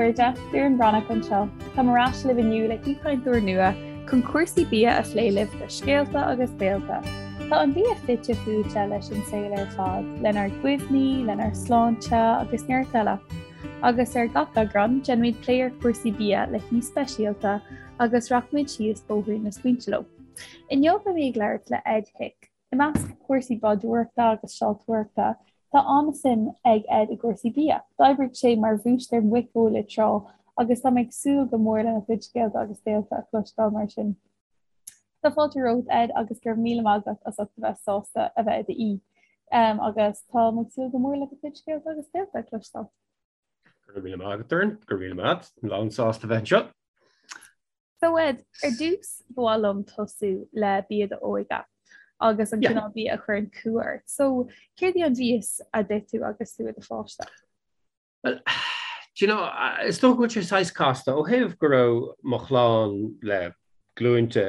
chairde, Doireann Breathnach anseo. Táim ar ais libh inniu le haoichainteoir nua chun cúrsaí bia a phlé libh le scéalta agus béalta. Tá an bia fite fuaite leis an saol ar fad, lenár gcuimhní, lenár sláinte agus neart eile. Agus ar gach eagrán, déanfaimid plé ar chúrsaí bia le haoi speisialta agus rachaimid síos bóithrín na smaointe leo. Inniu beidh mé ag labhairt le Ed Hick. I measc cúrsaí bádóireachta agus seoltóireachta, tá an-suim ag Ed i gcúrsaí bia. D'oibrigh sé mar bhúistéir muiceola tráth agus tá mé ag súil go mór lena chuid scéalta agus béalta a chloisteáil mar sin. Tá fáilte romhat Ed agus go raibh míle maith agat as ucht a bheith sásta a bheith i d'aoi agus tá mé ag súil go mór le do chuid scéalta agus béalta a chloisteáil. Go raibh míle maith agat Doireann, go raibh míle maith agat, lán-sásta bheith anseo. So Ed, ar dtús ba mhaith liom tosú le bia d'óige agus an cineál bia a chuireann cumha ort. So céard í an mhias a d'ith tú agus tú i do pháiste? Well, do you know, is dócha go bhfuil sé saghas casta ó thaobh go raibh mo chlann le glúinte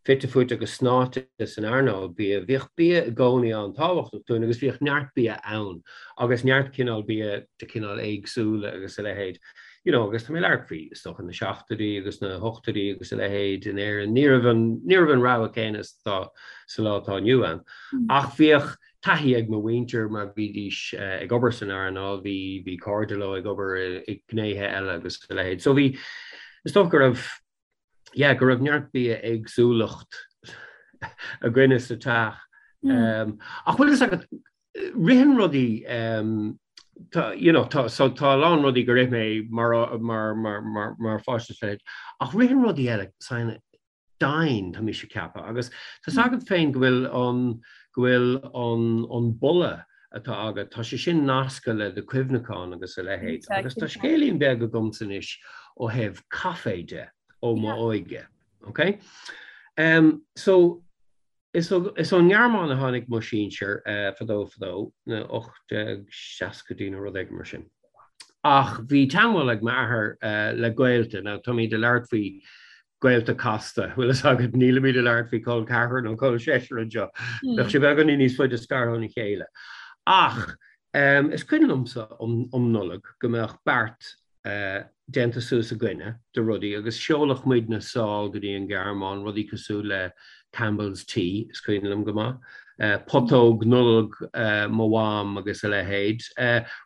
fite fuaite agus snáite san earnáil bia. Bhíodh bia i gcónaí an-tábhachtach dúinn agus bhíodh neart bia ann agus neart cineál bia de chineál éagsúla agus a leithéid. You know, agus tá mé ag labhairt faoi, is dócha, na seachtóidí agus na hochtóidí agus a leithéid in Éirinn. Ní raibh an, ní raibh an rogha céanna is atá sa lá atá inniu ann. Ach bhíodh taithí ag mo mhuintir mar bhídís ag obair san earnáil, bhí, bhí cairde leo ag obair i ngnéithe eile agus a leithéid. So bhí, is dócha go raibh, yeah, go raibh neart bia éagsúlacht againne sa teach. Ach bhfuil fhios agat, ritheann rudaí, tá, you know, tá, so tá a lán rudaí gur ith mé mar, mar, mar, mar, mar pháiste is a leithéid, ach ritheann rudaí eile saghas domhain, tá mise ag ceapadh, agus tá 's agat féin go bhfuil an, go bhfuil an, an boladh atá agat, tá sé sin nasctha le do chuimhneachán agus a leithéid. Agus tá scéilín beag agamsa anois ó thaobh caife de ó m'óige. Ok? Um, so, is ón nGearmáin a tháinig mo sinsir uh, fadó fadó, na 1860idí nó rud éigin mar sin. Ach bhí teagmháil ag m'athair uh, le gaolta, now táimid ag labhairt faoi gaolta casta, bhfuil fhios agat, nílimid ag labhairt faoi col ceathrar nó col seisear anseo. Bheadh sé beagáinín níos faide scartha óna chéile. Ach is cuimhin liomsa um Nollaig go mbeadh beart déanta suas againne de rudaí agus sheoladh muidne sall go dtí an Ghearmáin, rudaí cosúil le Campbell's Tea, is cuimhin liom go maith, putóg Nollag mo mham agus a leithéid,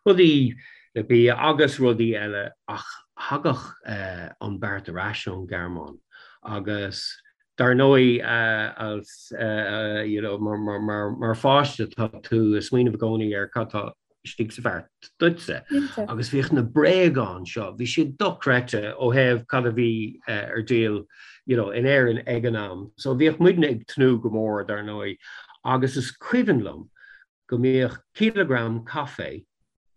rudaí le bia agus rudaí eile ach thagadh an beart ar ais ón Ghearmáin agus dar ndóigh as you know mar pháiste tá tú ag smaoineamh i gcónaí ar cad tá istigh sa bheart duitse agus bhíodh na bréagáin seo, bhí siad dochreidte ó thaobh cad a bhí ar díol you know in Éirinn ag an am. So bhíodh muidne ag tnúth go mór dar ndóigh agus is cuimhin liom go mbíodh cileagram caife,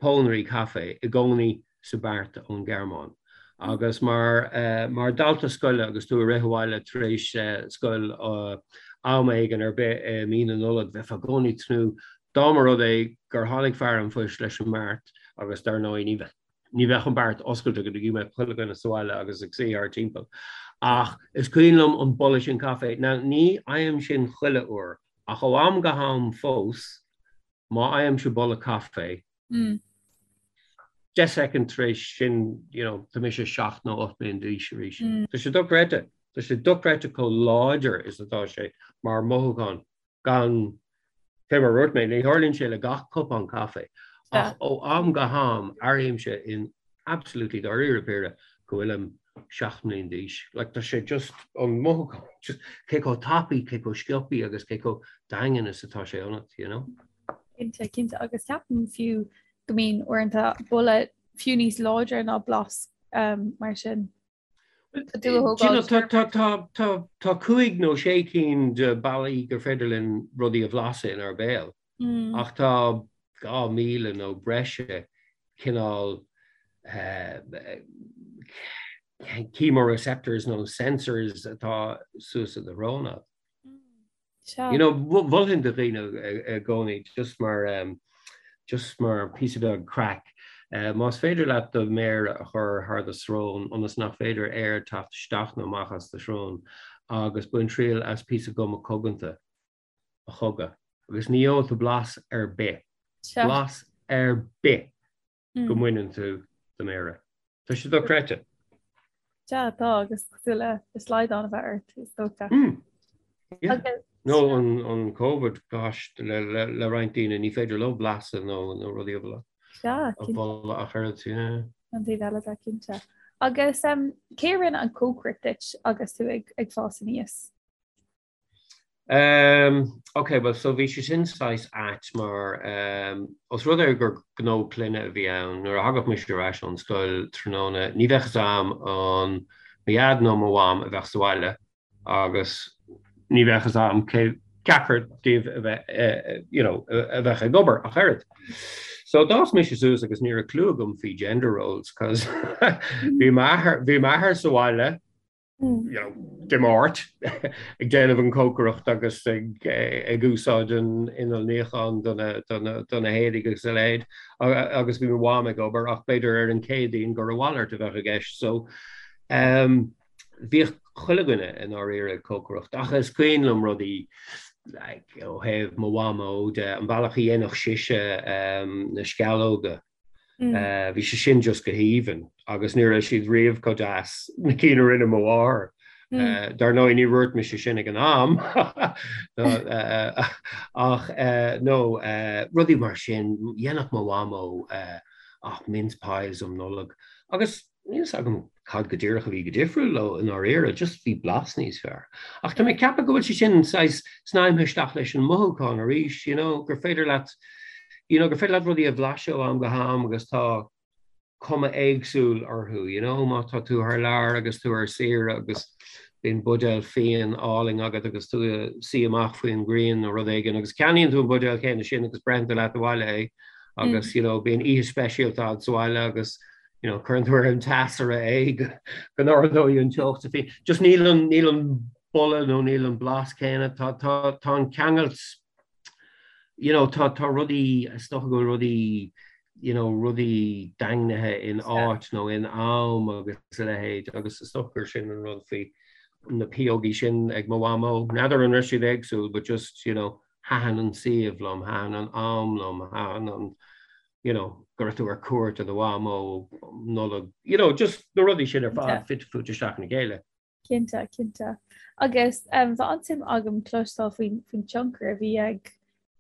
pónairí caife, i gcónaí sa bheart ón Ghearmáin. Agus mar mar dhalta scoile agus tú ag rith abhaile tar éis scoil am éigin ar bith i mí na Nollag, bheifeá i gcónaí ag tnúth dá mba rud é gur tháinig fear an phoist leis an mbeart agus dar ndóigh ní ní bheadh an beart oscailte go dtí go mbeadh chuile dhuine sa bhaile agus ag suí thart timpeall. Ach is cuimhin liom an boladh sin caife. Now ní fhaighim sin chuile uair Ach ó am go ham fós, má fhaighimse boladh caife, 10 soicind tar éis sin, you know, tá mise 7 nó 8 mbliana d'aois arís. Tá sé dochreidte. Tá sé dochreidte chomh láidir is atá sé mar mhothúchán gan, fé mar a dúirt mé, ní tharlaíonn sé le gach cupán caife, ach ó am go ham airímse in absolutely dáiríre píre go bhfuilim 7 mbliana d'aois. Like tá sé just an mothúchán, just cé chomh tapaidh, cé chomh sciobtha agus cé chomh daingean is atá sé ionat, you know? Cinnte, cinnte agus ceapaim fiú go mbíonn uaireanta boladh fiú níos láidre ná blas um, mar sin. Tá 5 nó 6 cinn de bealaí gur féidir linn rudaí a bhlaiseadh inár béal. Ach tá 2,000 nó breise cineál chemoreceptors nó sensors atá suas i do shrón agat. You know, mholfainn do dhaoine i gcónaí just mar just mar píosa beag craic, más féidir leat do mhéar a chur thar do srón ionas nach féidir aer teacht isteach nó amach as do shrón agus bain triail as píosa guma coganta. a chogadh agus ní gheobhaidh tú blas ar bith, blas ar bith go mbaineann tú. do m'fhéara. Tá sé dochreidte. Sea, tá, agus cosúil le slaghdán a bheith ort, is dócha. Yeah. Nó an Covid, gosh, le roinnt daoine, ní féidir leo blaiseadh nó rudaí a bholadh. Sea, cinnte. A bholadh ach oiread, yeah. An taobh eile de, cinnte. Agus cé a rinne an cócaireacht duit agus tú ag fás aníos? Um, ok, well so bhí sé sin saghas ait mar um, os rud é gur gnó clainne a bhí ann, nuair a thagadh mise ar ais ón scoil tráthnóna, ní bheadh fhios a'm an mo dhaid nó mo mham a bheadh sa bhaile agus ní bheadh fhios a'm cé ceachtar díobh a bheith, eh, you know, a bheadh ag obair ach oiread. So d'fhás mise suas agus ní raibh clue agam faoi gender roles cos bhí m'athair sa bhaile you know, Dé Máirt ag déanamh an cócaireacht agus ag ag úsáid an inneall níocháin do na do na do na héadaí agus a leithéid agus bhí mo mham ag obair ach b'fhéidir ar an Chéadaoin gur a mhalairt a bheadh i gceist so um, bhíodh chuile dhuine i ndáiríre ag cócaireacht ach is cuimhin liom rudaí like, ó thaobh mo mhamó de an bealach a dhéanfadh sise um, na sceallóga Bhí sé sin just go haoibhinn agus ní raibh siad riamh chomh deas na cinn a rinne mo mháthair. Dar ndóigh ní dhúirt mise sin ag an am ach no rudaí mar sin dhéanfadh mo mhamó ach mince pies um Nollaig agus Níl fhios agam cad go díreach a bhí go difriúil leo i ndáiríre, just bhí blas níos fearr. Ach tá mé ag ceapadh go bhfuil sé sin saghas snaidhmthe isteach leis an mothúchán arís, you know, gur féidir leat, you know, gur féidir leat rudaí a bhlaiseadh ó am go ham agus tá cuma éagsúil orthu, you know, má tá tú thar lear agus tú ar saoire agus bíonn buidéal fíon álainn agat agus tú ag suí amach faoin ngrian nó rud éigin agus ceannaíonn tú an buidéal céanna sin agus breitheann tú leat abhaile é agus, you know, bíonn oíche speisialta agat sa bhaile agus you know, cuireann tú ar an teasaire é go n-ardóidh an teocht sa fhíon. Just níl an, níl an boladh nó níl an blas céanna, tá, tá, tá an ceangailt, you know, tá, tá rudaí, is dócha go bhfuil rudaí, you know, rudaí daingnithe in áit nó in am agus a leithéid agus is dócha gur sin an rud faoi na piógaí sin ag mo mhamó. N'fheadar an raibh siad éagsúil but just, you know, thaitin an suíomh liom, thaitin an am liom, thaitin an, you know, go raibh tú ar cuairt ar do mhamó um Nollaig, you know, just na rudaí sin ar fad fite fuaite isteach ina chéile. Cinnte, cinnte. Agus um, bheadh an-suim agam cloisteáil faoin faoin tionchar a bhí ag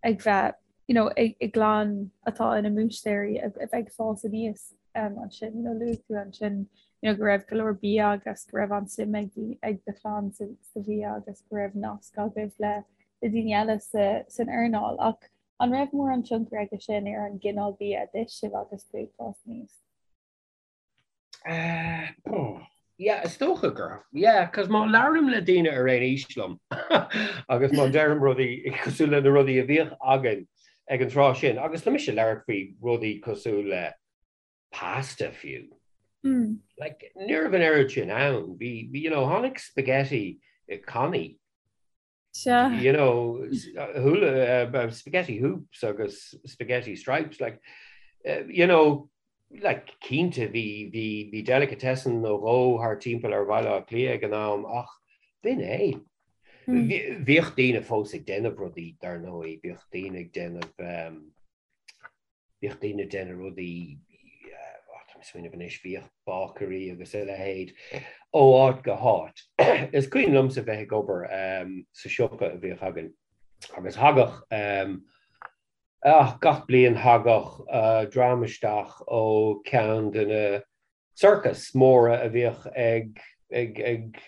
ag bheith you know, ag, i gclann atá ina mbúistéirí a, a bheith ag fás aníos um, ansin, you know, luaigh tú ansin you know, go raibh go leor bia agus go raibh an-suim ag, ag do chlann sa, sa bhia agus go raibh nasc agaibh le, le daoine eile sa, san earnáil. Ach An raibh mórán tionchar aige sin ar an gcineál bia a d'ith sibh agus tú ag fás aníos? Yeah, is dócha gur. Yeah, cos má labhraím le daoine ar aon aois liom agus má deirim rudaí cosúil le na rudaí a bhíodh againn ag an tráth sin, agus tá mise ag labhairt faoi rudaí cosúil le pasta fiú. Like, ní raibh an oiread sin ann. Bhí, you know, tháinig spaghetti i cannaí. Sea. You know, hula, spaghetti hoops agus spaghetti stripes, like, you know, like, cinnte bhí, bhí, bhí delicatessen nó dhó thar timpeall ar Bhaile Átha Cliath ag an am ach b'in é. Bhíodh daoine fós ag déanamh rudaí, dar ndóigh, bhíodh daoine ag déanamh, Bhíodh daoine ag déanamh rudaí, tá mé ag smaoineamh anois, bhíodh bácairí agus a leithéid ó áit go háit. Is cuimhin liomsa bheith ag obair sa siopa a bhíodh againn agus thagadh, gach bliain thagadh dream isteach ó ceann de na sorcais móra a bhíodh ag ag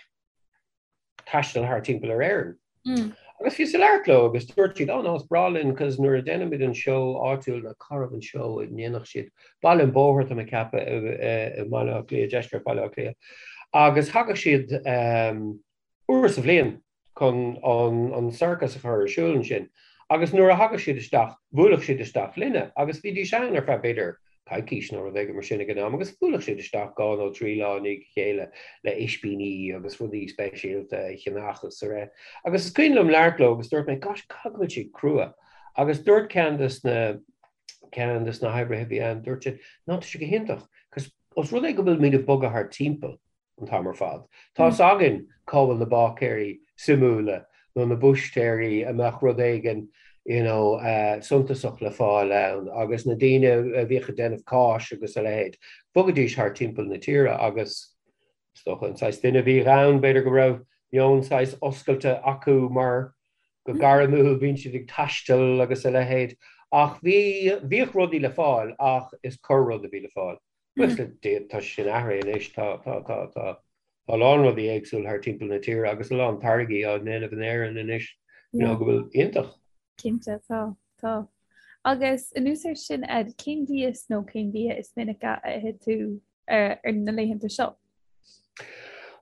taisteal thar timpeall ar Éirinn. Agus bhíos ag labhairt leo agus dúirt siad, oh no, is breá linn cos nuair a déanaimid an seó áitiúil, nó cá raibh an seó a ndéanadh siad, Baile an Bhóthair tá mé ag ceapadh i mBaile Átha Cliath, deisceart Bhaile Átha Cliath. Agus thagadh siad uair sa bhliain chun an sorcas a chur ar siúl ansin. Agus nuair a thagadh siad isteach, bhuailfeadh siad isteach linne agus bhídís ann ar feadh b'fhéidir coicís nó rud éigin mar sin ag an am agus bhuailfeadh siad isteach dhá nó trí lá i ndiaidh a chéile le ispíní agus rudaí speisialta a cheannach agus a rith. Agus is cuimhin liom labhairt leo agus dúirt mé, gosh, caithfidh go bhfuil siad crua. Agus dúirt ceann des na ceann des na hoibrithe a bhí ann, dúirt siad, no, tá sé go hiontach, cos os rud é go bhfuil muid ag bogadh thar timpeall, an t-am ar fad. Tá fhios againn cá bhfuil na báicéirí suimiúla nó na búistéirí a mbeadh rud éigin you know, suntasach le fáil ann agus na daoine a bhíodh ag déanamh cáis agus a leithéid, bhogaidís thar timpeall na tíre agus is dócha an saghas duine a bhíodh ann, b'fhéidir go raibh meon saghas oscailte acu mar go gairmiúil bíonn siad ag taisteal agus a leithéid. Ach bhí, bhíodh rudaí le fáil ach is corr rud a bhí le fáil. Buíochas le Dia tá sé sin athraithe anois, tá, tá, tá, tá, tá a lán rudaí éagsúil thar timpeall na tíre agus a lán táirgí á ndéanamh in Éirinn anois, you know, go bhfuil iontach. Cinnte, tá, tá. Agus anuas air sin, Ed, cén mhias nó cén bia is minice a itheann tú ar na laethanta seo?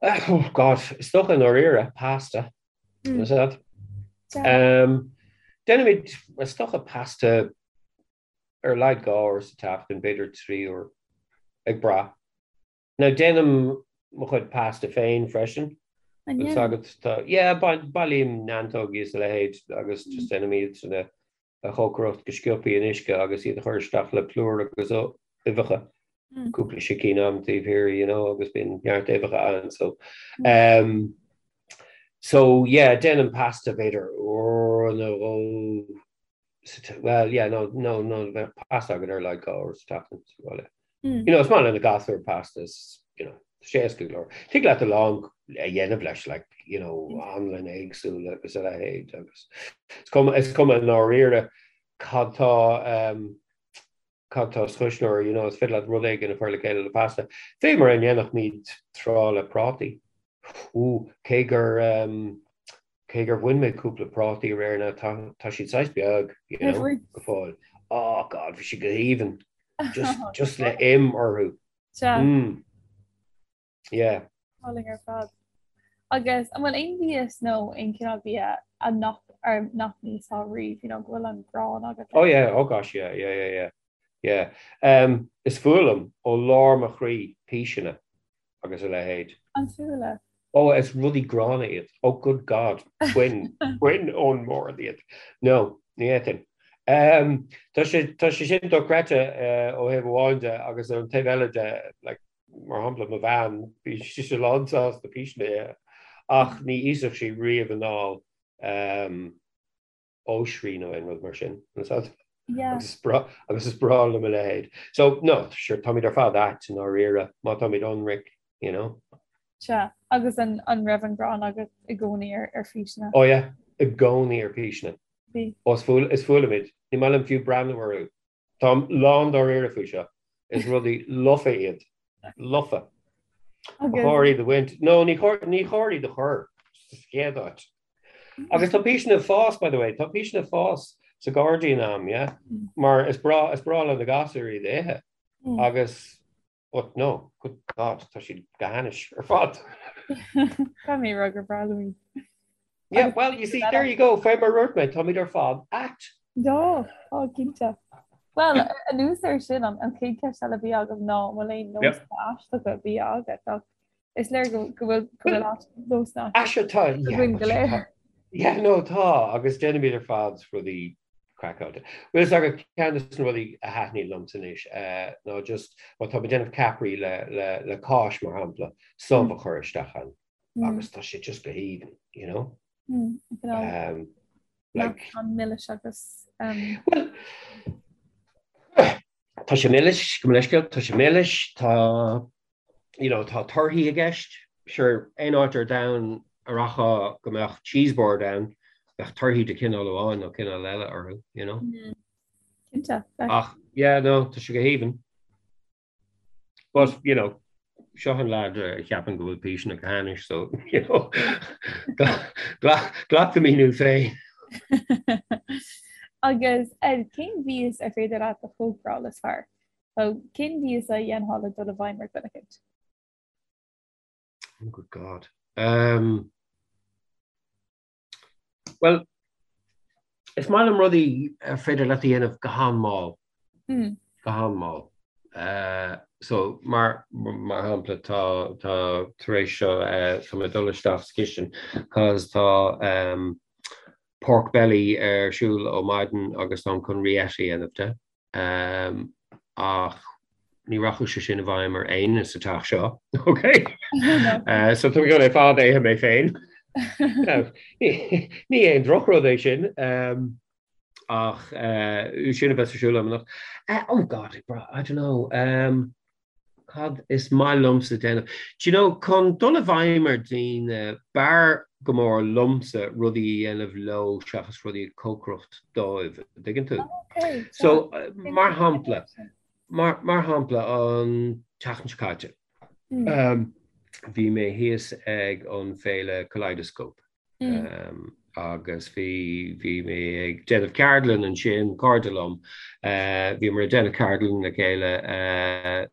Oh God, is dócha i ndáiríre, pasta. Is that? Um, déanaimid, is dócha pasta ar a laghad 2 uair sa tseachtain, b'fhéidir 3 uair, ag brath. Now déanaim mo chuid pasta féin freisin. An Agus ndéanann? agat tá, yeah, bailím neantógaí is a leithéid agus just déanaim iad sin a chócaireacht go sciobthaí in uisce agus iad a chur isteach le plúr agus uibheacha. Cúpla sicín a'm taobh thiar, you know, agus bíonn neart uibheacha ann, so. Um, so yeah, déanaim pasta b'fhéidir uair nó dhó Well, yeah, no, no, no, bheadh pasta againn ar a laghad 2 uair sa tseachtain sa bhaile. You know, is maith le na gasúir pasta, is, you know, tá sé éasca go leor. Tig leat a lán a dhéanamh leis, like, you know, anlann éagsúla agus a leithéid agus is cuma, is cuma i ndáiríre cad tá, um, cad tá sa chuisneoir, you know, is féidir leat rud éigin a chur le chéile le pasta. Fé mar a ndéanfadh tráth le prátaí. Ooh, cé gur, um, cé gur bhain mé cúpla prátaí aréir now, tá, tá siad saghas beag, you know, go fóill. Oh God, bhí siad go haoibhinn. Just, just le im orthu. Sea. Mm. Yeah. Álainn ar fad. Agus an bhfuil aon mhias nó aon chineál bia a nach ar nach n-íosfá riamh, you know, go bhfuil an ghráin agat Oh yeah, oh gosh, yeah, yeah, yeah, yeah. Yeah. Um, is fuath liom ó lár mo chroí píseanna agus a leithéid. An fuath leat? Oh, is rudaí gránna iad. Oh good God, bain, bain ón mbord iad. No, ní fhéadfainn. Um, tá sé, tá sé sin dochreidte uh, ó thaobh amháin de agus ar an taobh eile de, like, Mar shampla, mo bhean, bhí sise lánsásta píseanna a ithe, ach ní íosfadh sí riamh anall oisrí nó aon rud mar sin. Agus is breá liom a leithéid. So, no, sure, táimid ar fad ait i ndáiríre, má táimid ionraic, you know. Sea, agus an raibh an ghráin agat i gcónaí ar phíseanna? Oh yeah, i gcónaí ar phíseanna. Bhí. Ó, is fuath liom iad. Ní maith liom fiú breathnú orthu. Táim lán dáiríre faoi seo. Is rudaí lofa iad. Lofa. Ba chóir iad a bhaint. No, ní chóir, ní chóir iad a chur sa chéad áit. Agus tá píseanna ag fás, by the way, tá píseanna ag fás sa ghairdín a'm, yeah? Mar is breá, is breá le na gasúir iad a ithe. Agus But no, good God, tá siad go hainnis ar fad. Tá mé rá gur breá liom iad. Yeah, well, you see, there you go, fé mar a dúirt mé, táimid ar fad ait. Tá, tá, cinnte. Well, anuas air sin, an chéad cheist eile a bhí agam ná an bhfuil aon nósanna aisteacha bia agat, ach is léir go bhfuil go bhfuil nósanna aisteacha againn go léir. Yeah, no, tá, agus déanaimid ar fad rudaí craiceáilte. Bhfuil fhios agat ceann de na rudaí a thaitníonn liomsa anois ná just má tá mé ag déanamh ceapairí le, le, le cáis mar shampla, subh a chur isteach ann agus tá sé just go haoibhinn, you know? Um, like, an milis agus um... Well, tá sé milis, go leisceal, tá sé milis, tá you know, tá torthaí i gceist. Sure, aon áit ar domhan a rachfá go mbeadh cheese board ann, bheadh torthaí de chineál amháin nó cineál eile orthu, you know. Mm. Cinnte. Ach, yeah, no, tá sé go haoibhinn. But, you know, seo an lad a cheapann go bhfuil píseanna go hainnis, so, you know, glac do mhíniú féin. Agus cén mhias ar féidir leat a chócaráil is fearr? So, cén mhias a dhéanfá le dul i bhfeidhm ar dhuine éicint? Oh, good God. Um, well, is maith liom rudaí ar féidir leat a dhéanamh go han-mhall. Mm. Go han-mhall. Uh, so, mar, mar shampla, tá, tá tar éis seo, uh, tá mé ag dul isteach sa chistin, cos tá um, pork belly ar siúl ó maidin agus táim chun rillette a dhéanamh de. Ach ní rachadh sé sin i bhfeidhm ar éinne sa teach seo, ok? So tá mé chun é fad a ithe mé féin. Ní aon drochrud é sin. Ach sin a bheas ar siúl agam anocht. Oh God, I don't know. Um, cad is maith liomsa déanamh? Do you know, chun dul i bhfeidhm ar daoine, b'fhearr go mór liomsa rudaí a dhéanamh leo seachas rudaí a cócaireacht dóibh, an dtuigeann tú? Okay, So, mar shampla, mar, mar shampla, an tseachtain seo caite, um, bhí mé thíos ag an féile Kaleidoscope. Agus bhí, bhí mé ag déanamh ceardlann ansin, cairde liom, bhíomar ag déanamh ceardlann le chéile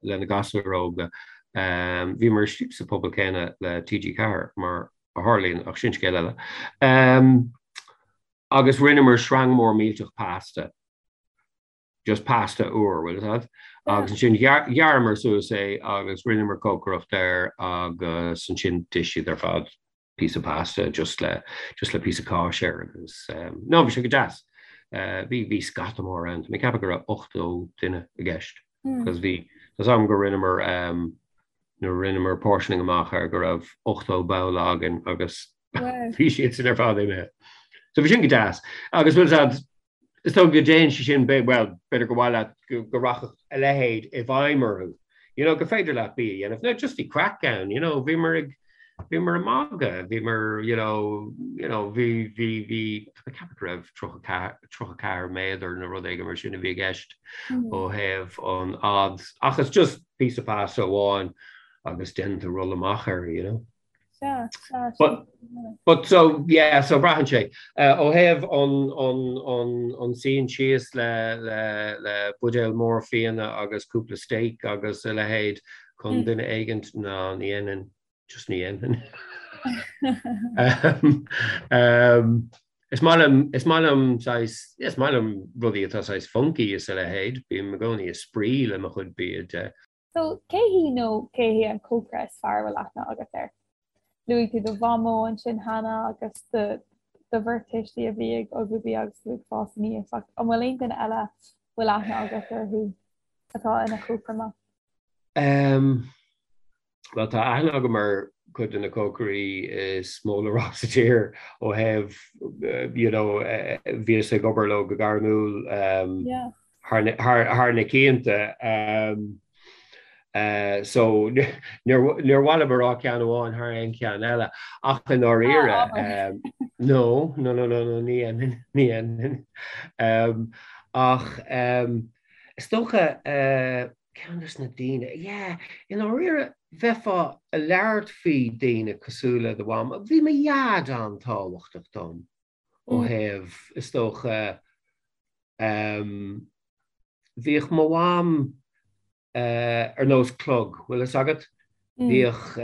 le na gasúir óga. Bhíomar istigh sa phuball céanna le TG4 mar a tharlaíonn, ach sin scéal eile. Agus rinneamar sreang mór millteach pasta. just pasta úr, bhfuil fhios agat? Agus ansin ghearramar suas é agus rinneamar cócaireacht air agus ansin d'ith siad ar fad píosa pasta just le just le píosa cáis air agus um, no bhí sé go deas. Uh, bhí bhí scata mór ann, mé ag ceapadh go raibh 80 duine i gceist. Mm. Cos bhí tá 's agam go rinneamar um, nuair a rinneamar portioning amach air go raibh 80 babhla againn agus bhí siad sin ar fad imithe. So bhí sin go deas. Agus bhfuil fhios agat Is dócha go dtéann sé sin, bhuel, b'fhéidir gur mhaith leat go rachadh a leithéid i bhfeidhm orthu, you know, gur féidir leat bia a dhéanamh. Now, just bhí craic ann, you know, bhíomar ag, bhíomar ag magadh, bhíomar, you know, you know, bhí, bhí, bhí, tá mé ag ceapadh go raibh 34, 34 méadar nó rud éigin mar sin a bhí i gceist ó thaobh an fhad, ach it's just píosa pasta amháin agus déanann tú rolla amach air, you know. Sea, sea, But, but so, yeah, so braitheann sé. Uh, ó thaobh an, an, an, an suíonn síos le, le, le buidéal mór fíona agus cúpla steak agus a leithéid chun mm. duine éigint ná ní dhéanfainn, just ní dhéanfainn. um, um, is maith liom, is maith liom saghas, is maith liom rudaí atá saghas funky is a leithéid, bím i gcónaí ag spraoi le mo chuid bia de. So, cé hí nó cé hé an cócaire is fearr a bhfuil aithne agat air? Luaigh tú do mhamó ansin cheana agus do do bheirt tuistí a bhí ag ullmhú bia agus tú ag fás aníos, ach an bhfuil aon duine eile a bhfuil aithne agat orthu atá ina chócaire maith? Um, Bhuel, tá aithne agam ar chuid de na cócairí is mó le rá sa tír ó thaobh, you know, bhíos ag obair leo go gairmiúil. Um, yeah. thar na cianta. So níor mhaith liom a rá ceann amháin thar aon cheann eile ach i ndáiríre no, no, no, no, no, ní dhéanfainn, ní dhéanfainn. Ach is dócha ceann des na daoine, yeah, i ndáiríre bheifeá ag labhairt faoi daoine cosúil le do mham, bhí mo dhaid an-tábhachtach dom. ó thaobh, is dócha, bhíodh mo mham ar nós clog, bhfuil fhios agat? Bhíodh,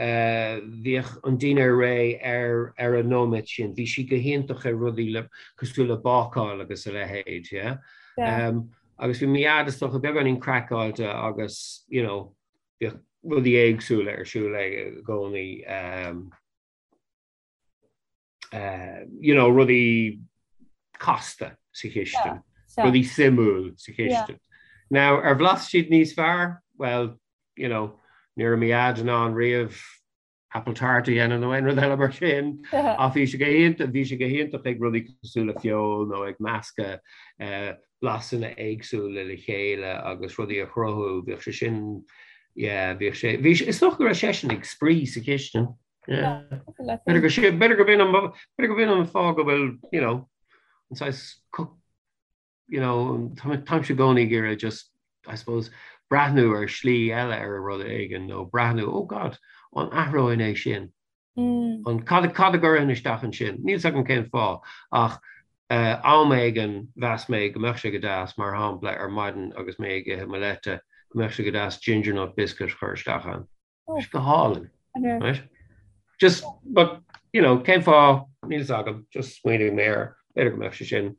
bhíodh an dinnéar réidh ar, ar an nóiméad sin. Bhí sí go hiontach ar rudaí le, cosúil le bácáil agus a leithéid, yeah? Agus bhí mo dhaid, is dócha, beagáinín craiceáilte agus, you know, bhíodh rudaí éagsúla ar siúl aige i gcónaí. you know, rudaí casta sa chistin, rudaí suimiúil sa chistin. Now, ar bhlas siad níos fearr? Well, you know, ní raibh mo dhaid in ann riamh apple tart a dhéanamh nó aon rud eile mar sin, ach bhí sé go hiontach, bhí sé go hiontach ag rudaí cosúil le feoil nó ag meascadh eh, blasanna éagsúla le chéile agus rudaí a chruthú, bhíodh sé sin, yeah, bhíodh sé, bhí sé, is dócha go raibh seisean ag spraoi sa chistin. B'fhéidir go sin, b'fhéidir go b'in an, b'fhéidir go b'in an fáth go bhfuil, you know, an saghas cook, you know, táimse i gcónaí ag iarraidh just, I suppose, breathnú ar shlí eile ar rud éigin nó breathnú, oh God, an athróinn é sin? Mm. An cad, cad a gcuirfinn isteach ansin? Níl 's agam cén fáth, ach uh, am éigin mheas mé go mbeadh sé go deas, mar shampla, ar maidin agus mé ag ithe mo leite, go mbeadh sé go deas ginger nut biscuit a chur isteach ann. Tá go hálainn. Right? Just, but, you know, cén fáth, níl 's agam, just smaoinigh mé air, b'fhéidir go mbeadh sé sin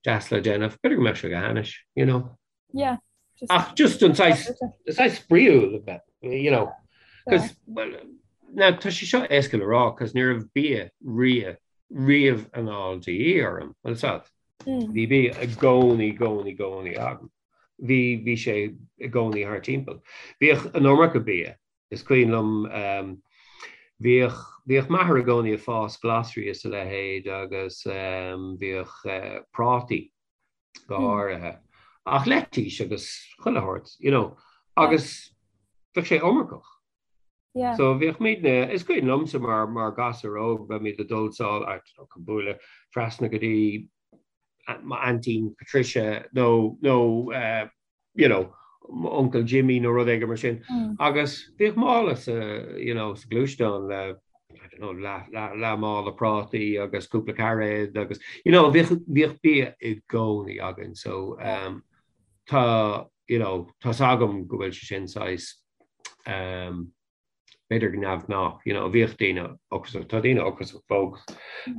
deas le déanamh, b'fhéidir go mbeadh sé go hainnis, you know. Yeah. Just, Ach just an saghas, an saghas spraíúil a bheith, you know. Cos, well, now, tá sé seo éasca le rá, cos ní raibh bia ria, riamh anall de dhíth orm, bhfuil 's agat. Mm. Bhí bia i gcónaí, gcónaí, gcónaí agam. Bhí, bhí sé i gcónaí thart timpeall. Bhíodh an iomarca bia. Is cuimhin liom, bhíodh, bhíodh m'athair i gcónaí ag fás glasraí is a leithéid agus bhíodh prátaí. Go háirithe. Ach leitís agus chuile shórt, you know, agus bheadh sé iomarcach. Yeah. So bhíodh muidne, is cuimhin liomsa mar, mar ghasúr óg, bheimid ag dul sall, I don't know, chun bualadh trasna go dtí m'aintín Patricia nó, nó eh, you know, m'uncail Jimmy nó rud éigin mar sin. Agus bhíodh mála sa, you know, sa ghluaisteán le, I don't know, leath, leath, leath mála prátaí agus cúpla cairéad agus, you know, bhíodh, bhíodh bia i gcónaí againn. So, um, tá, you know, tá's agam go bhfuil sé sin saghas, um, b'fhéidir go neamhghnách, you know, bhíodh daoine ocrasach, tá daoine ocrasach fós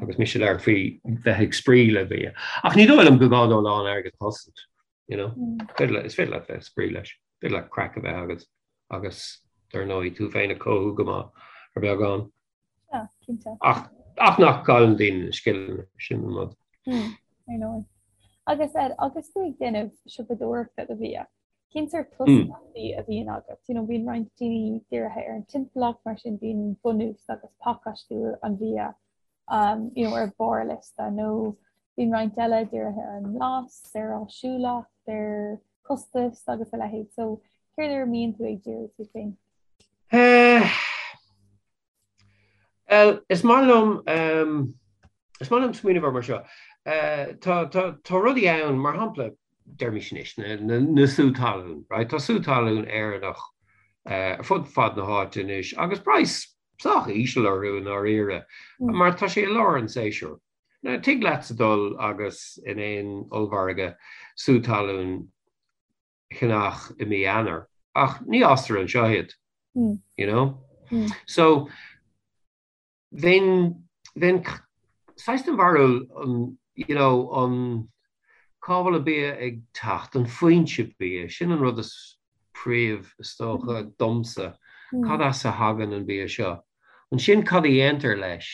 agus mise ag labhairt faoi bheith ag spraoi le bia. Ach ní dóigh liom go gá dó a lán airgid a chosaint, you know. Féidir le, is féidir leat bheith ag spraoi leis, féidir leat craic a bheith agat agus dar ndóigh tú féin a chothú go maith ar beagán. Yeah, cinnte. Ach, ach nach gcailleann daoine na scileanna, sin an rud. Mm, ar ndóigh. Agus Ed, agus tú ag déanamh siopadóireachta do bhia, Cén sórt tosaíochtaí a bhíonn agat? You know, bíonn roinnt daoine dírithe ar an timpeallacht, mar sin bíonn bunús agus pacáistiú an bhia um, you know, ar barr liosta, nó bíonn roinnt eile dírithe ar an mblas, ar áisiúlacht, ar costas agus a leithéid. So, céard ar a mbíonn tú ag díriú tú féin? Eh, Bhuel, is maith liom, is maith liom smaoineamh air mar seo. Tá, tá, tá rudaí ann, mar shampla, deirimis anois, na, na, na sú talún, right? Tá sú talún Éireannach ar fud fad na háite anois agus praghas sách íseal orthu i ndáiríre, mar tá sé i lár an tséasúir. Now, tig leatsa dul agus in aon ollmhargadh sú talún cheannach i mí Eanáir, ach ní fhástar anseo iad, you know? So, bheinn, bheinn saghas den bharúil an, you know, an, cá bhfuil an bia ag teacht, an foinse bia, sin an rud is príomh, is dócha, domsa, cad as a thagann an bia seo? Ansin cad a dhéantar leis?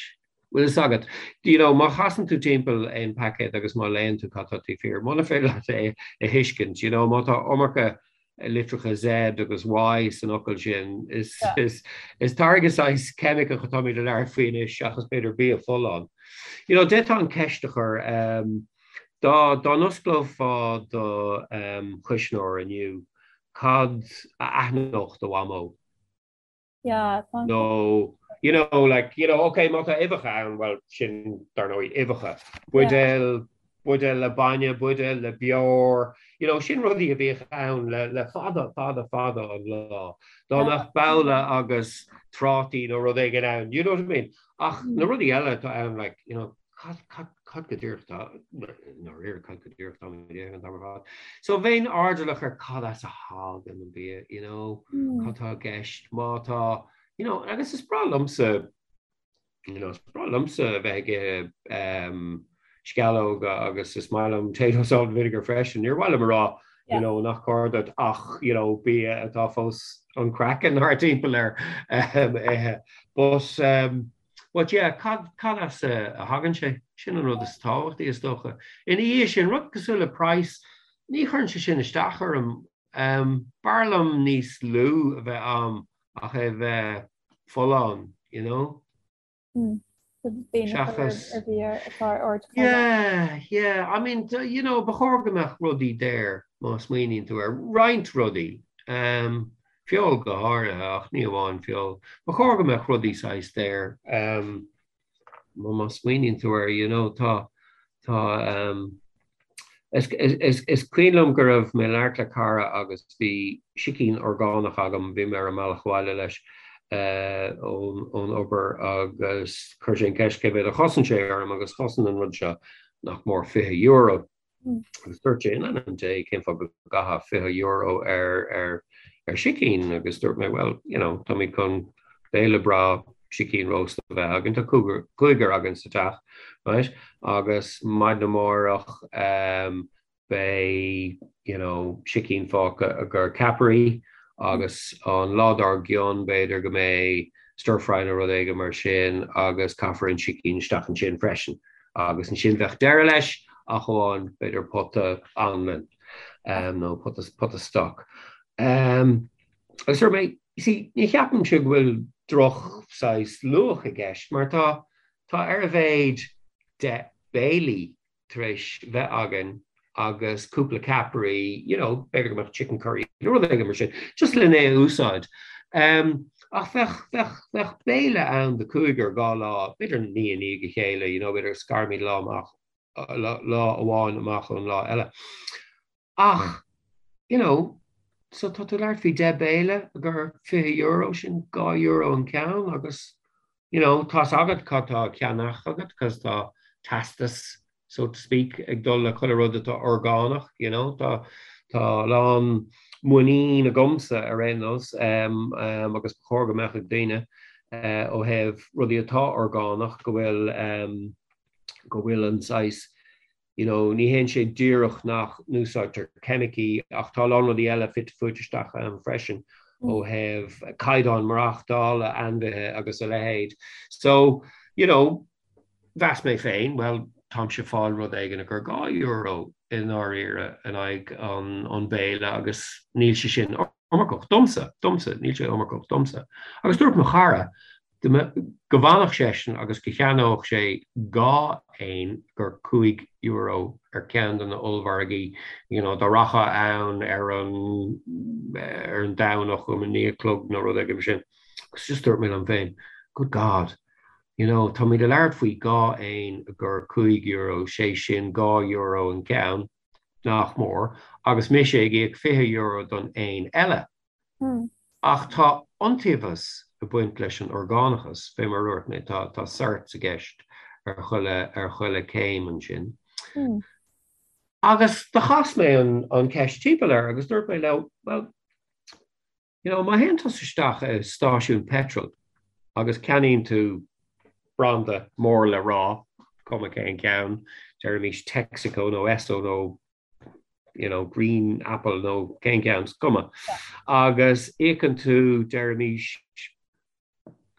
Bhfuil fhios agat, you know, má chasann tú timpeall aon paicéad agus má léann tú cad tá taobh thiar, muna féidir leat é a thuiscint, you know, má tá iomarca litreacha Z agus Y san fhocal sin, is, is, is táirge saghas ceimiceach atáimid ag labhairt faoi anois seachas b'fhéidir bia folláin. You know, d'fhéadfá an ceist a chur, um, dá, dá n-osclófá do, um, chuisneoir inniu, cad a aithneodh do mhamó? Yeah, tá an Nó, you know, like, you know, okay, má tá uibheacha ann, well, sin, dar ndóigh, uibheacha. Buidéal, buidéal le bainne, buidéal le beoir, you know, sin rudaí a bhíodh ann le, le fada, fada, fada an lá. Dá mbeadh babhla agus trátaí nó rud éigin ann, you know what I mean? Ach na rudaí eile atá ann, like, you know, Cad, cad, cad go díreach tá, i ndáiríre, cad go díreach tá mé ag déanamh an t-am ar fad. So bheinn airdeallach ar cad as a thagann an bia, you know, cad tá i gceist, má tá, you know, agus is breá liomsa, you know, is breá liomsa a bheith ag ithe um, sceallóga agus is maith liom potato salt and vinegar freisin. Níor mhaith liom a rá, you know, nach cóir duit ach, you know, bia atá fós an craiceann thart timpeall air um, ithe. But, um, But yeah, cad, cad as a thagann sé? Sin an rud is tábhachtaí, is dócha. Ina dhiaidh sin, rud cosúil le praghas, ní chuireann sé sin isteach orm. B'fhearr liom níos lú a bheith a'm ach é a bheith folláin, you know? Seachas. Ar bhia atá ar ardchaighdeán. Yeah, yeah. I mean, you know, ba chóir go mbeadh rudaí daor má smaoiníonn tú air. Roinnt rudaí. Feoil go háirithe, ach ní amháin feoil. Ba chóir go mbeadh rudaí saghas daor. Má smaoiníonn tú air, you know, tá, tá, is, is, is cuimhin liom go raibh mé ag labhairt le cara agus bhí sicín orgánach agam, bhí mé ar an mbealach abhaile leis ón, ón obair agus chuir sé an ceist cé mhéad a chosain sé orm agus chosain an rud seo nach mór €20. Agus dúirt sé, in ainm Dé, cén fáth go gcaithfeá €20 ar, ar, ar sicín? Agus dúirt mé, well, you know, táimid chun béile breá sicín rósta a bheith againn, tá cúigear, cúigear againn sa teach, right? Agus maidin amárach, um, beidh, you know, sicín fágtha i gcomhair ceapairí agus an lá dár gcionn b'fhéidir go mbeidh stir fry nó rud éigin mar sin agus caithfear an sicín isteach ansin freisin. Agus ansin bheadh deireadh leis, ach amháin b'fhéidir pota anlann nó pota, pota stoc. Agus dúirt mé, you see, ní cheapaimse go bhfuil droch saghas luach i gceist mar tá, tá ar a mhéad 10 béilí tar éis bheith againn. agus cúpla ceapairí, you know, b'fhéidir go mbeadh chicken curry nó rud éigin mar sin, just lena é a úsáid. Um, ach bheadh, bheadh, bheadh béile ann do cúigear dhá lá, b'fhéidir ní i ndiaidh a chéile, you know, b'fhéidir scarimid lá amach, lá, lá amháin amach ón lá eile. Ach, you know, so tá tú ag labhairt faoi 10 béile gur €20, sin €2 an ceann agus, you know, tá's agat cad tá á cheannach agat cos tá teastas, so to speak, ag dul le chuile rud atá orgánach, you know, tá tá a lán muinín agamsa ar aon nós um, um, agus ba chóir go mbeadh ag daoine uh, ó thaobh rudaí atá orgánach go bhfuil um, go bhfuil an saghas you know, ní théann sé díreach nach n-úsáidtear ceimicí ach tá a lán rudaí eile fite fuaite isteach ann freisin ó thaobh caighdeán maireachtála ainmhithe agus a leithéid. So, you know, mheas mé féin, well, táimse ag fáil rud éigin gur €2 i ndáiríre in aghaidh an, an béile agus níl sé sin iomarcach domsa, domsa, níl sé iomarcach domsa. Agus dúirt mo chara go bhfanfadh seisean agus go cheannódh sé dhá éan gur €5 ar ceann de na ollmhargaí, you know, dá rachfá ann ar an ar an Domhnach um a naoi a chlog nó rud éigin mar sin. Agus just dúirt mé liom féin, good God, you know, táimid ag labhairt faoi dhá éan gur €5, sé sin €2 an ceann. nach mór, agus mise ag íoc €20 don éan eile. Ach tá iontaobhas ag baint leis an orgánachas, fé mar a dúirt mé, tá tá certs i gceist ar chuile ar chuile céim ansin. Agus do chas mé an an ceist timpeall air agus dúirt mé leo, well, You know, má théann tusa isteach i stáisiún peitril agus ceannaíonn tú branda mór le rá, cuma cén ceann, deirimís Texaco nó Esso nó you know, Green Apple nó cén ceann, is cuma, agus íocann tú, deirimís,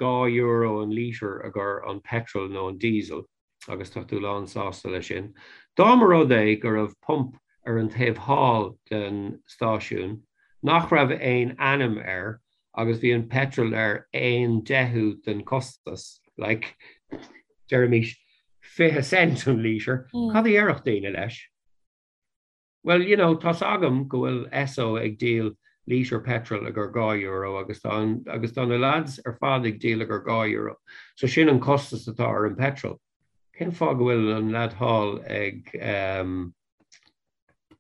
€2 an lítear agur an petrol nó an diesel agus tá tú lán sásta leis sin. Dá mba rud é go raibh pump ar an taobh thall den stáisiún nach raibh aon ainm air agus bhí an petrol ar aon deichiú den costas, like, deirimís 20 cent an lítear, cad a dhéarfadh daoine leis? Well, you know, tá's agam go bhfuil Esso ag díol lítear petrol agur €2 agus tá an, agus tá na lads ar fad ag díol agur €2. So sin an costas atá ar an petrol. Cén fáth go bhfuil an lad thall ag um,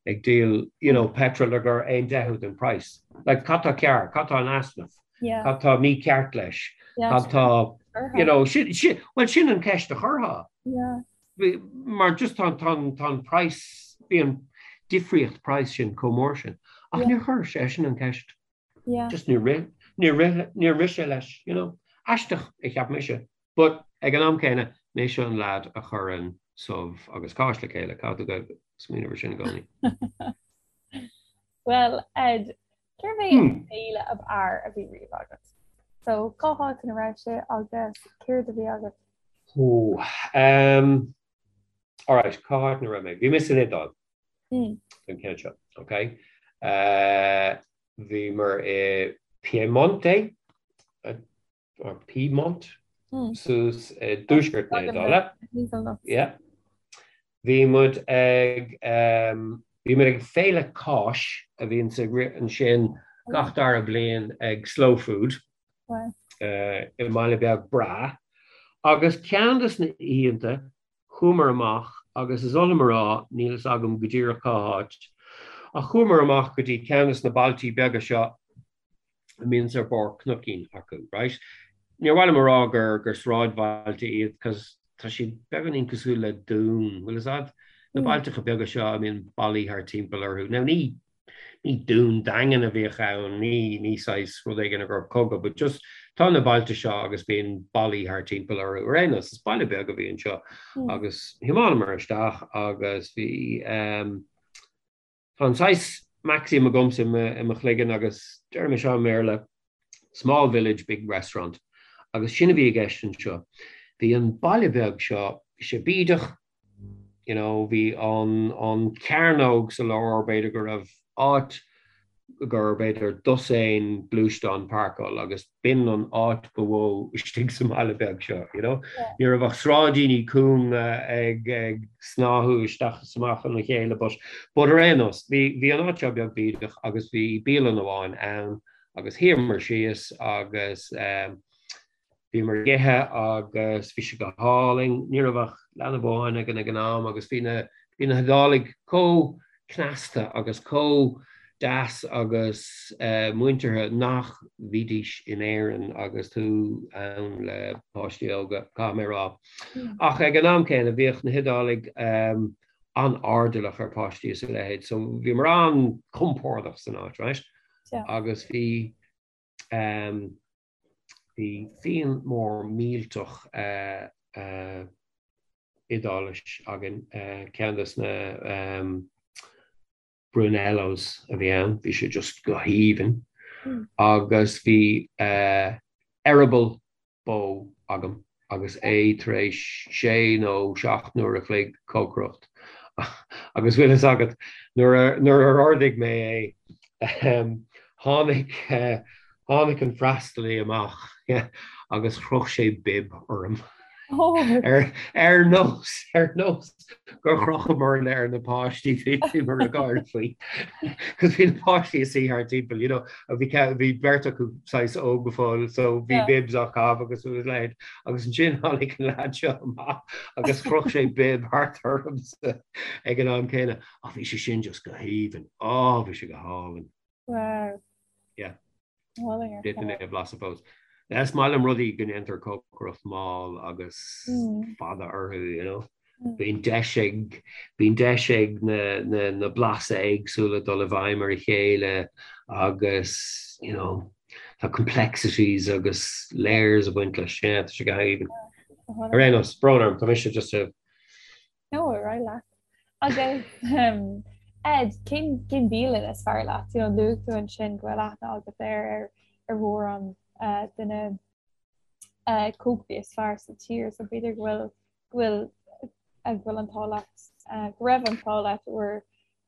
ag díol, you know, petrol agur aon deichiú den price? Like, cad tá cearr? Cad tá in easnamh? Yeah. Cad tá mícheart leis? Yeah. Cad tá, you know, sin, sin, well, sin an ceist a chuirfeá. Yeah. Mar just tá tá an price, bhí an difríocht price sin chomh mór sin. Ach níor chuir seisean an ceist. Just níor rith, níor rith, níor rith sé leis, you know. Aisteach a cheap mise. But ag an am céanna, mise an lad a chuireann subh agus cáis le chéile, caithfidh tú bheith ag smaoineamh ar sin i gcónaí. Well, Ed, cérbh é an béile ab fhearr a bhí riamh agat? So, cá háit ina raibh sé agus céard a bhí agat? Ó, um, alright, cá háit ina raibh mé? Bhí mé san Iodáil don ceann seo, ok? Uh, bhíomar i Piemonte, or Piedmont, suas i dtuaisceart na hIodáile. Yeah. Bhí muid ag, um, bhí muid ag féile cáis a bhíonn ag rith ansin gach dara bliain ag Slow Food. i mbaile beag breá. Agus ceann de na hoícheanta, chuamar amach, agus is oth liom a rá, níl fhios agam go díreach cá háit, ach chuamar amach go dtí ceann de na bailtí beaga seo a mbíonns ar barr cnoicín acu, right? Níor mhaith liom a rá gur gur sráidbhailte iad, cos tá siad beagáinín cosúil le dún, bhfuil fhios a'd? Na bailteacha beaga seo a mbíonn ballaí thar timpeall orthu. Now ní ní dún daingean a bhíodh ann, ní ní saghas rud éigin a raibh cogadh, but just tá na bailte seo agus bíonn ballaí thar timpeall orthu. Ar aon nós, is baile beag a bhí anseo agus thiomáineamar isteach agus bhí um, tá an saghas maxim agamsa i mo, i mo chloigeann agus deirim é seo i mBéarla, small village, big restaurant. Agus sin a bhí i gceist anseo. Bhí an baile beag seo, bhí sé bídeach, you know, bhí an, an cearnóg sa lár, b'fhéidir go raibh áit. gur b'fhéidir dosaen gluaisteán páirceáil agus b'in an áit ba mhó istigh sa mbaile beag seo, you know. Ní raibh ach sráidíní cúnga ag ag snáthú isteach is amach ina chéile but but ar aon nós, bhí bhí an áit seo beag bídeach agus bhí bialann amháin ann agus shuíomar síos agus eh, Bhíomar ag ithe agus bhí sé go hálainn. Ní raibh ach leanbh amháin againn ag an am agus bhí na bhí na hIodálaigh chomh cneasta agus chomh deas agus muinteartha nach mbídís in Éirinn agus tú ann le páistí óga, caithfidh mé a rá. Ach ag an am céanna bhíodh na hIodálaigh an-airdeallach ar pháistí is a leithéid so bhíomar an-chompordach san áit, right? Agus bhí Bhí fíon mór millteach Iodáilis againn, ceann de na Brunellos a bhí ann, bhí sé just go haoibhinn. Agus bhí eireaball bó agam agus é tar éis sé nó seacht n-uair a chloig cócaireacht agus bhfuil fhios agat nuair nuair a ordaigh mé é tháinig tháinig an freastalaí amach agus chroch sé bib orm. Ar ar nós ar nós gur chrochamarna ar na páistí bhíomar ag gáire faoi. Cos bhí na páistí ag suí thart timpeall, you know, bhí bhí beirt acu saghas óg go fóill, so bhí bibs á gcaitheamh agus a leithéid. Agus ansin tháinig an leaid seo amach agus chroch sé bib thart ormsa ag an am céanna. Ach bhí sé sin just go haoibhinn. Á, bhí sé go hálainn. Wow. Yeah. D'fhéadfainn é a bhlaiseadh fós. Is maith liom rudaí go ndéantar cócaireacht mall agus fada orthu, you know. Bíonn deis ag, bíonn deis ag na, na, na blasa éagsúla dul i bhfeidhm ar a chéile agus, you know, tá complexities agus layers ag baint leis. Yeah, tá sé go haoibhinn. Ar aon nós, brón orm, tá mise just a No, ar aghaidh leat. Agus Ed, cén cén bialann is fearr leat? You know, luaigh tú ansin go bhfuil aithne agat ar ar ar mhórán uh, de na uh, cócairí is fearr sa tír, so b'fhéidir go bhfuil go bhfuil uh, go bhfuil an t-ádh leat uh, go raibh an t-ádh leat uair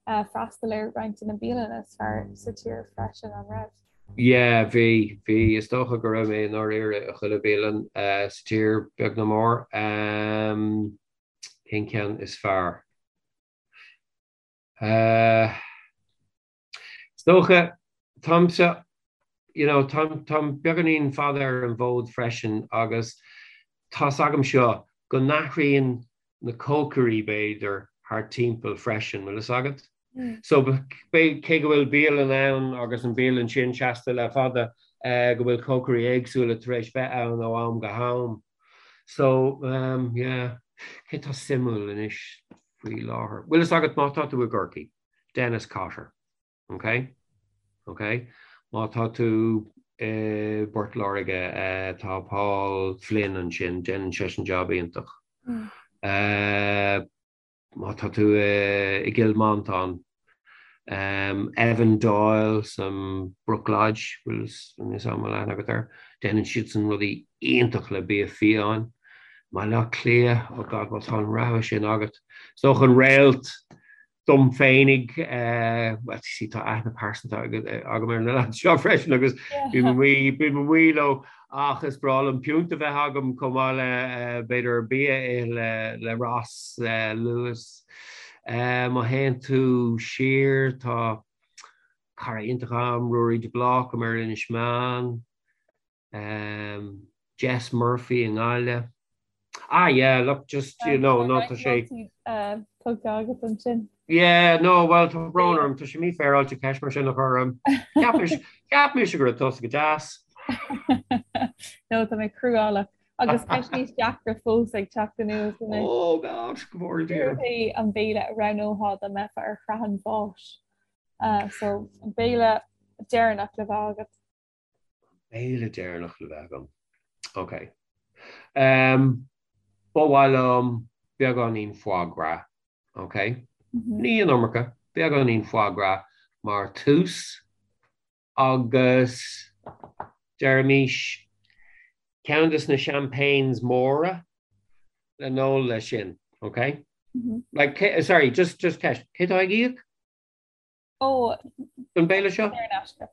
uh, freastal ar roinnt de na bialanna is fearr sa tír freisin, an raibh? Yeah, bhí, bhí. Is dócha go raibh mé i ndáiríre i chuile bialann uh, sa tír, beag nó mór. Um, Cén ceann is fearr? Is dócha, táimse, you know, táim, táim beagáinín fada ar an bhfód freisin agus tá's agam seo go n-athraíonn na cócairí, b'fhéidir, thart timpeall freisin, bhfuil fhios agat? So, cé go bhfuil bialann ann agus an bialann sin seasta le fada, go bhfuil cócairí éagsúla tar éis bheith ann ó am go ham. So, yeah, cé tá suimiúil anois faoi láthair? Bhfuil fhios agat má tá tú i gCorcaigh, Dennis Cotter, ok? Ok? Má tá tú i bPort Láirge, tá Paul Flynn ansin, déanann seisean jab iontach. Má tá tú i gCill Mhantáin, Evan Doyle san Brooklodge, bhfuil fhios a'm an bhfuil aithne agat air, déanann siadsan rudaí iontach le bia fiáin. Baile Átha Cliath, oh God, má tá an rogha sin agat. Is dócha an réalt dom féinig, well, see, tá aithne pearsanta agam ar na lads seo freisin agus bím amuigh, bím amuigh leo Ach is breá liom piúnt a bheith agam chomh maith le b'fhéidir bia a ithe le le Ross Lewis. Má théann tú siar tá cara iontach agam, Ruairí de Blácam ar Inis Meáin, Jess Murphy i nGaillimh. Ah yeah, look, just, you know, no, tá sé. Tugtha agat ansin. Yeah, no, well, tá brón orm, tá sé mífhéaráilte ceist mar sin a chur orm. Cheap mise, cheap mise go raibh tusa go deas. No, tá mé cruálach. Agus ceist níos deacra fós ag teacht anuas anois. Oh God, go bhfóire Dia. Céard é an béile a roghnófá dá mbeifeá ar shraith an bháis? So, an béile deireanach le bheith agat. Béile deireanach le bheith agam. Ok. Um, ba mhaith liom beagáinín foie gras. Ok? Mm -hmm. Ní an iomarca, beagáinín foie gras mar tús agus deirimis ceann des na champagnes móra le n-ól leis sin. Ok? Mm -hmm. Like, sorry, just, just ceist. Cé tá ag íoc? Ó, Don béile seo? Saor in aisce.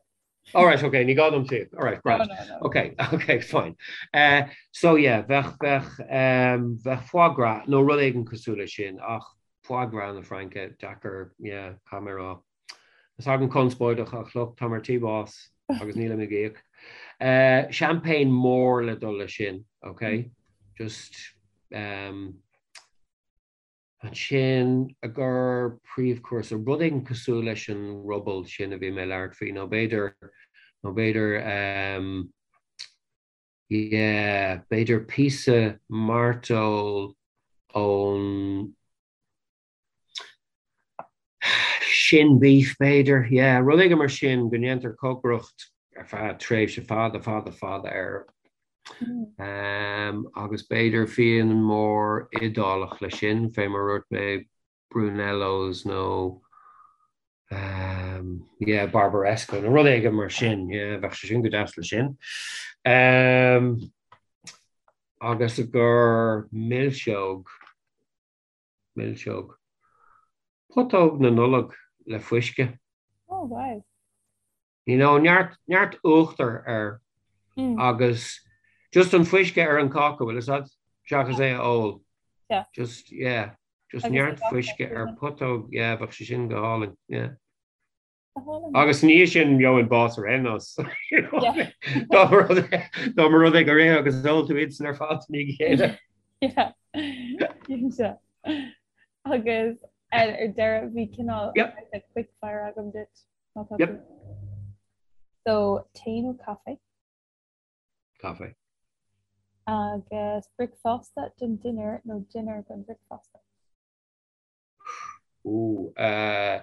All right, okay, ní gá dom suíomh. All right, grand. No, no, no. Okay, okay, fine. Uh, so yeah, bheadh, bheadh, um, bheadh foie gras nó rud éigin cosúil leis sin, ach foie gras na Fraince, deacair, yeah, caithfidh mé a rá. Is agam conspóideach ach look, táim ar tí bás agus nílim ag íoc. Uh, champagne mór le dul leis sin, okay? Just, um, Ansin, i gcomhair príomhchúrsa, rud éigin cosúil leis an ruball sin a bhí mé ag labhairt faoi, nó b'fhéidir, nó b'fhéidir, ehm, yeah, b'fhéidir píosa mairteoil ón shin beef, b'fhéidir, yeah, rud éigin mar sin, go ndéantar cócaireacht ar feadh tréimhse fada, fada, fada air. Agus b'fhéidir fíon mór Iodálach leis sin, fé mar a dúirt mé, Brunellos nó yeah, Barbaresco nó rud éigin mar sin, yeah, bheadh sé sin go deas leis sin. Agus i gcomhair milseog, milseog, putóg na Nollag le fuisce. Oh wow. You know, neart, neart uachtar air agus just an fuisce ar an cáca, bhfuil fhios a'd? Seachas é a ól. Yeah. Just, yeah, just neart fuisce ar putóg, yeah, bheadh sé sin go hálainn, yeah. Agus ní sin gheobhainn bás ar aon nós. Dá mba rud é gur ith agus ól tú iad san ar fad i ndiaidh a chéile. Yeah. Agus ar deireadh bhí cineál quick fire agam duit. Yep. So, tae nó caife? Caife. Agus bricfeasta don dinnéar nó dinnéar don bhricfeasta? Ó, eh,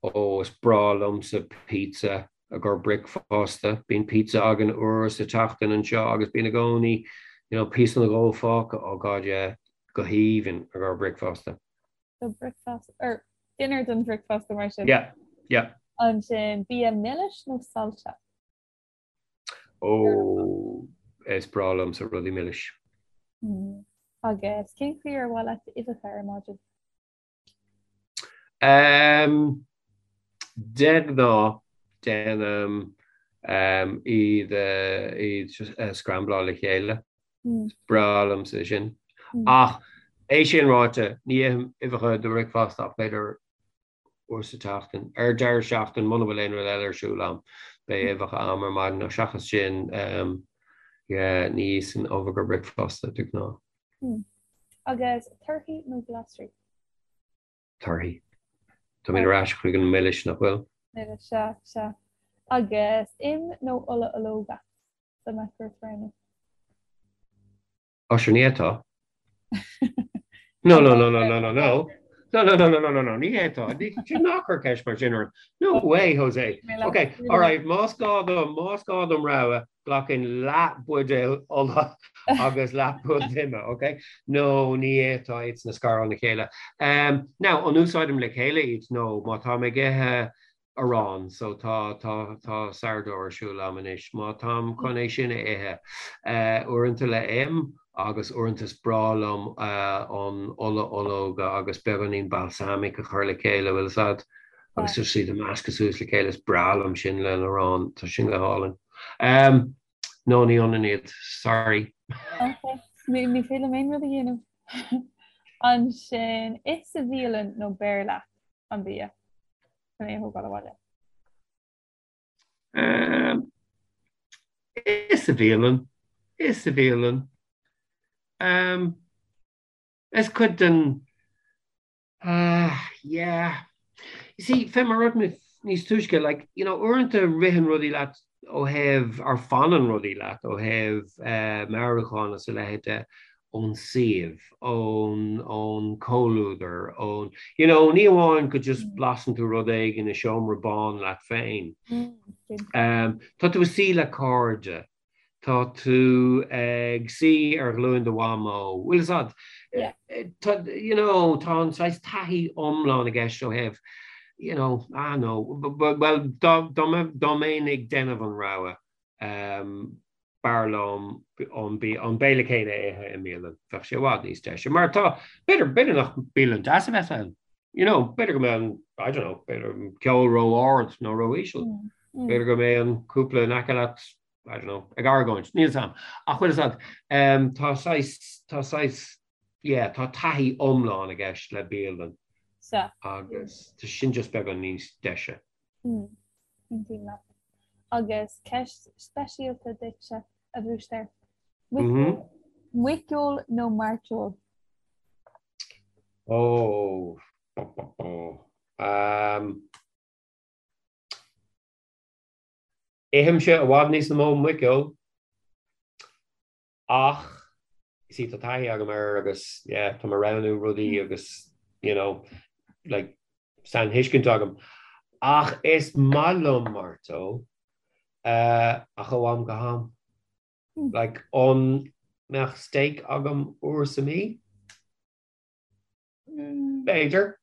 ó, is breá liomsa pizza i gcomhair bricfeasta. Bíonn pizza againn uair sa tseachtain anseo agus bíonn i gcónaí, you know, píosa nó dhó fágtha. Oh God, yeah, go haoibhinn i gcomhair bricfeasta. So bricfeasta, or dinnéar don bhricfeasta mar sin. Yeah, yeah. Ansin bia milis nó saillte? Ó, is breá liomsa rudaí milis. Mm. Agus cén chaoi ar mhaith leat uibheacha ar maidin? Um, de ghnáth déanaim um, iad, uh, iad uh, scrambláil le chéile. Is breá liomsa sin. Ach é sin ráite, ní ithim uibheacha do bhricfeasta ach b'fhéidir uair sa tseachtain. Ar deireadh seachtaine, muna bhfuil aon rud eile ar siúl a'm, beidh uibheacha a'm ar maidin ach seachas sin, yeah, ní íosfainn ubh do bhricfeasta de ghnáth. Agus torthaí nó glasraí? Torthaí. Táimid ar ais chuig an milis, nach bhfuil? Milis, sea, sea. Agus im nó ola ológa? Dá mbeadh ort roghnú. Ó sure ní fhéadfá. No, no, no, no, no, no, no. No, no, no, no, no, no, no, ní fhéadfá. Ná cuir ceist mar sin orm. No way, Jose. Ok, all right, más gá dom, más gá dom rogha, glacfainn leath buidéal ola agus leath buidéal ime, ok? No, ní fhéadfá iad san a scaradh óna chéile. Um, now, an úsáidim le chéile iad? No, má táim ag ithe arán, so tá, tá, tá sourdough ar siúl a'm anois. Má táim chun é sin a ithe, uaireanta le im agus uaireanta is breá liom an ola ológa agus beagáinín balsamic a chur le chéile, bhfuil fhios a'd, agus just iad a meascadh suas le chéile, is breá liom sin le arán, tá sin go hálainn. No, ní ionann iad, sorry. Ok, ní féidir liom aon rud a dhéanamh. Ansin, ith sa bhialann nó beir leat an bia? Chun é a thógáil abhaile. Ith sa bhialann. Ith sa bhialann. Is cuid den yeah. You see, fé mar a dúirt mé níos túisce, like, you know, uaireanta ritheann rudaí leat ó thaobh, or fanann rudaí leat ó thaobh meabhrúcháin is a leithéid de ón suíomh, ón, ón comhluadar, ón, you know, ní amháin go just blasann tú rud éigin i seomra bán leat féin. Tá tú ag suí le cairde, tá tú ag suí ar ghlúin do mhamó, bhfuil fhios a'd? Tá, you know, tá an saghas taithí iomlán i gceist ó thaobh, you know, ah no, well, dá, dá, dá mbeinn ag déanamh an rogha, b'fhearr liom an béile céanna a ithe i mbialann. Bheadh sé i bhfad níos deise. Mar tá, b'fhéidir, b'fhéidir nach bialann deas a bheas ann. You know, b'fhéidir go mbeidh an, I don't know, b'fhéidir an ceol ró-ard nó ró-íseal. B'fhéidir go mbeidh an cúpla in aice leat, I don't know, ag argóint. Níl 'fhios a'm. Ach bhfuil 'fhios a'd, tá saghas, tá saghas, yeah, tá taithí iomlán i gceist le bialann. Sea. Agus tá sin just beagán níos deise. Aontaím leat. Agus ceist speisialta duitse, a Bhúisteir. Muiceoil nó mairteoil? Ó, bó. Um, Ithimse i bhfad níos mó muiceoil ach you see tá taithí agam air agus yeah, tá mé ag roghnú rudaí agus you know, like, sainthuiscint agam. Ach is maith liom mairteoil uh, ach ó am go ham. Like, an mbeadh steak agam uair sa mí? B'fhéidir.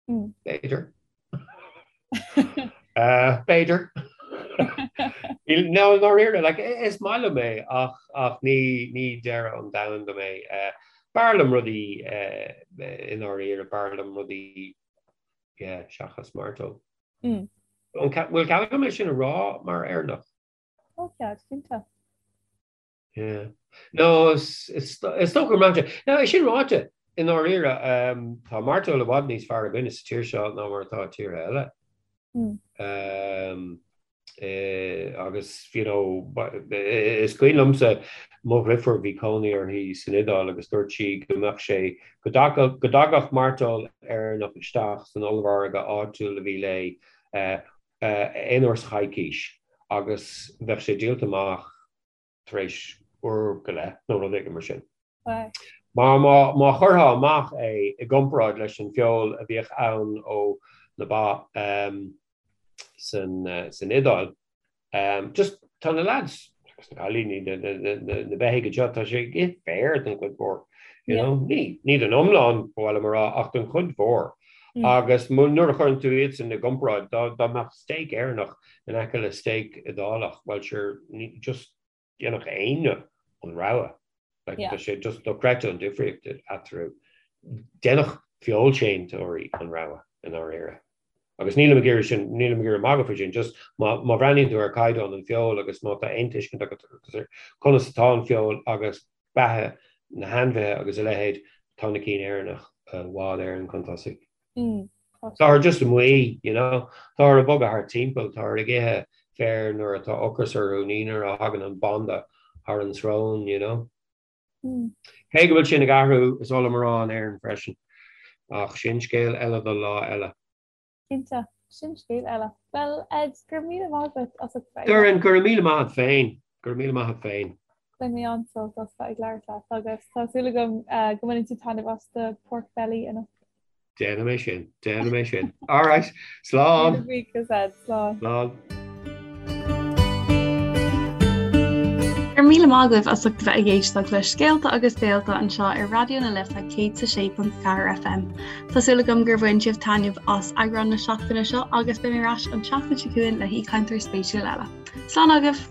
B'fhéidir. B'fhéidir. No, ndáiríre, like, is maith liom é ach, ach ní, ní deireadh an domhain dom é. B'fhearr liom rudaí i ndáiríre, b'fhearr liom rudaí, yeah, seachas mairteoil. An bhfuil cead agam é sin a rá mar Éireannach? Tá cead, cinnte. Yeah. No, is dócha go mbraitheann sé. Now, é sin ráite, i ndáiríre, tá mairteoil i bhfad níos fearr againne sa tír seo ná mar atá i tíortha eile. Agus, you know, is cuimhin liomsa mo dhriofúr, bhí cónaí uirthi san Iodáil agus dúirt sí go mbeadh sé, go dtagadh mairteoil Éireannach isteach san ollmhargadh áitiúil a bhí léi aon uair sa choicís agus bheadh sé díolta amach tar éis uair go leith nó rud éigin mar sin. Mar má chuirfeá amach é i gcomparáid leis an feoil a bhíodh ann ó na ba san Iodáil, Just tá na lads agus na cailíní, na beithígh anseo, tá sé ag ithe féar den chuid mhór. You know? Ní, ní den iomlán, ba mhaith liom a rá, ach den chuid mhór. Agus nuair a chuireann tú iadsan i gcomparáid, dá, dá mbeadh steak Éireannach in aice le steak Iodálach, bhuel sure, ní, just dhéanfadh éinne an rogha. Like, tá sé just dochreidte an difríocht eatarthu. Dhéanfadh feoilséantóirí an rogha i ndáiríre. Agus nílim ag iarraidh sin, nílim ag iarraidh magadh faoi sin, just má, má bhreathnaíonn tú ar chaighdeán an feoil agus má tá aon tuiscint agat ar conas atá an feoil agus beatha na hainmhithe agus a leithéid, tá na cinn Éireannach i bhfad Éireann chun tosaigh. Táthar just amuigh, you know. Táthar ag bogadh thart timpeall, táthar ag ithe féir nuair atá ocras orthu, ní nuair a thagann an banda thar an srón, you know. Cé go bhfuil sin ag athrú, is oth liom a rá, in Éirinn freisin. Ach sin scéal eile do lá eile. Cinnte, sin scéal eile. Bhuel, Ed, go raibh míle maith agat as ucht bheith. Doireann, go raibh míle maith agat féin. Go raibh míle maith agat féin. Bhain mé an-sult as bheith ag labhairt leat agus tá súil agam go mbaineann tú taitneamh as do pork belly anocht. Déanfaidh mé sin, déanfaidh mé sin. All right, slán. Míle buíochas Ed, slán. Slán. Go raibh míle maith agaibh as ucht a bheith ag éisteacht le Scéalta agus Béalta anseo ar Raidió na Life 106.4 FM. Tá súil agam gur bhain sibh taitneamh as eagrán na seachtaine seo agus beidh mé ar ais an tseachtain seo chugainn le haoichainteoir spéisiúil eile. Slán agaibh!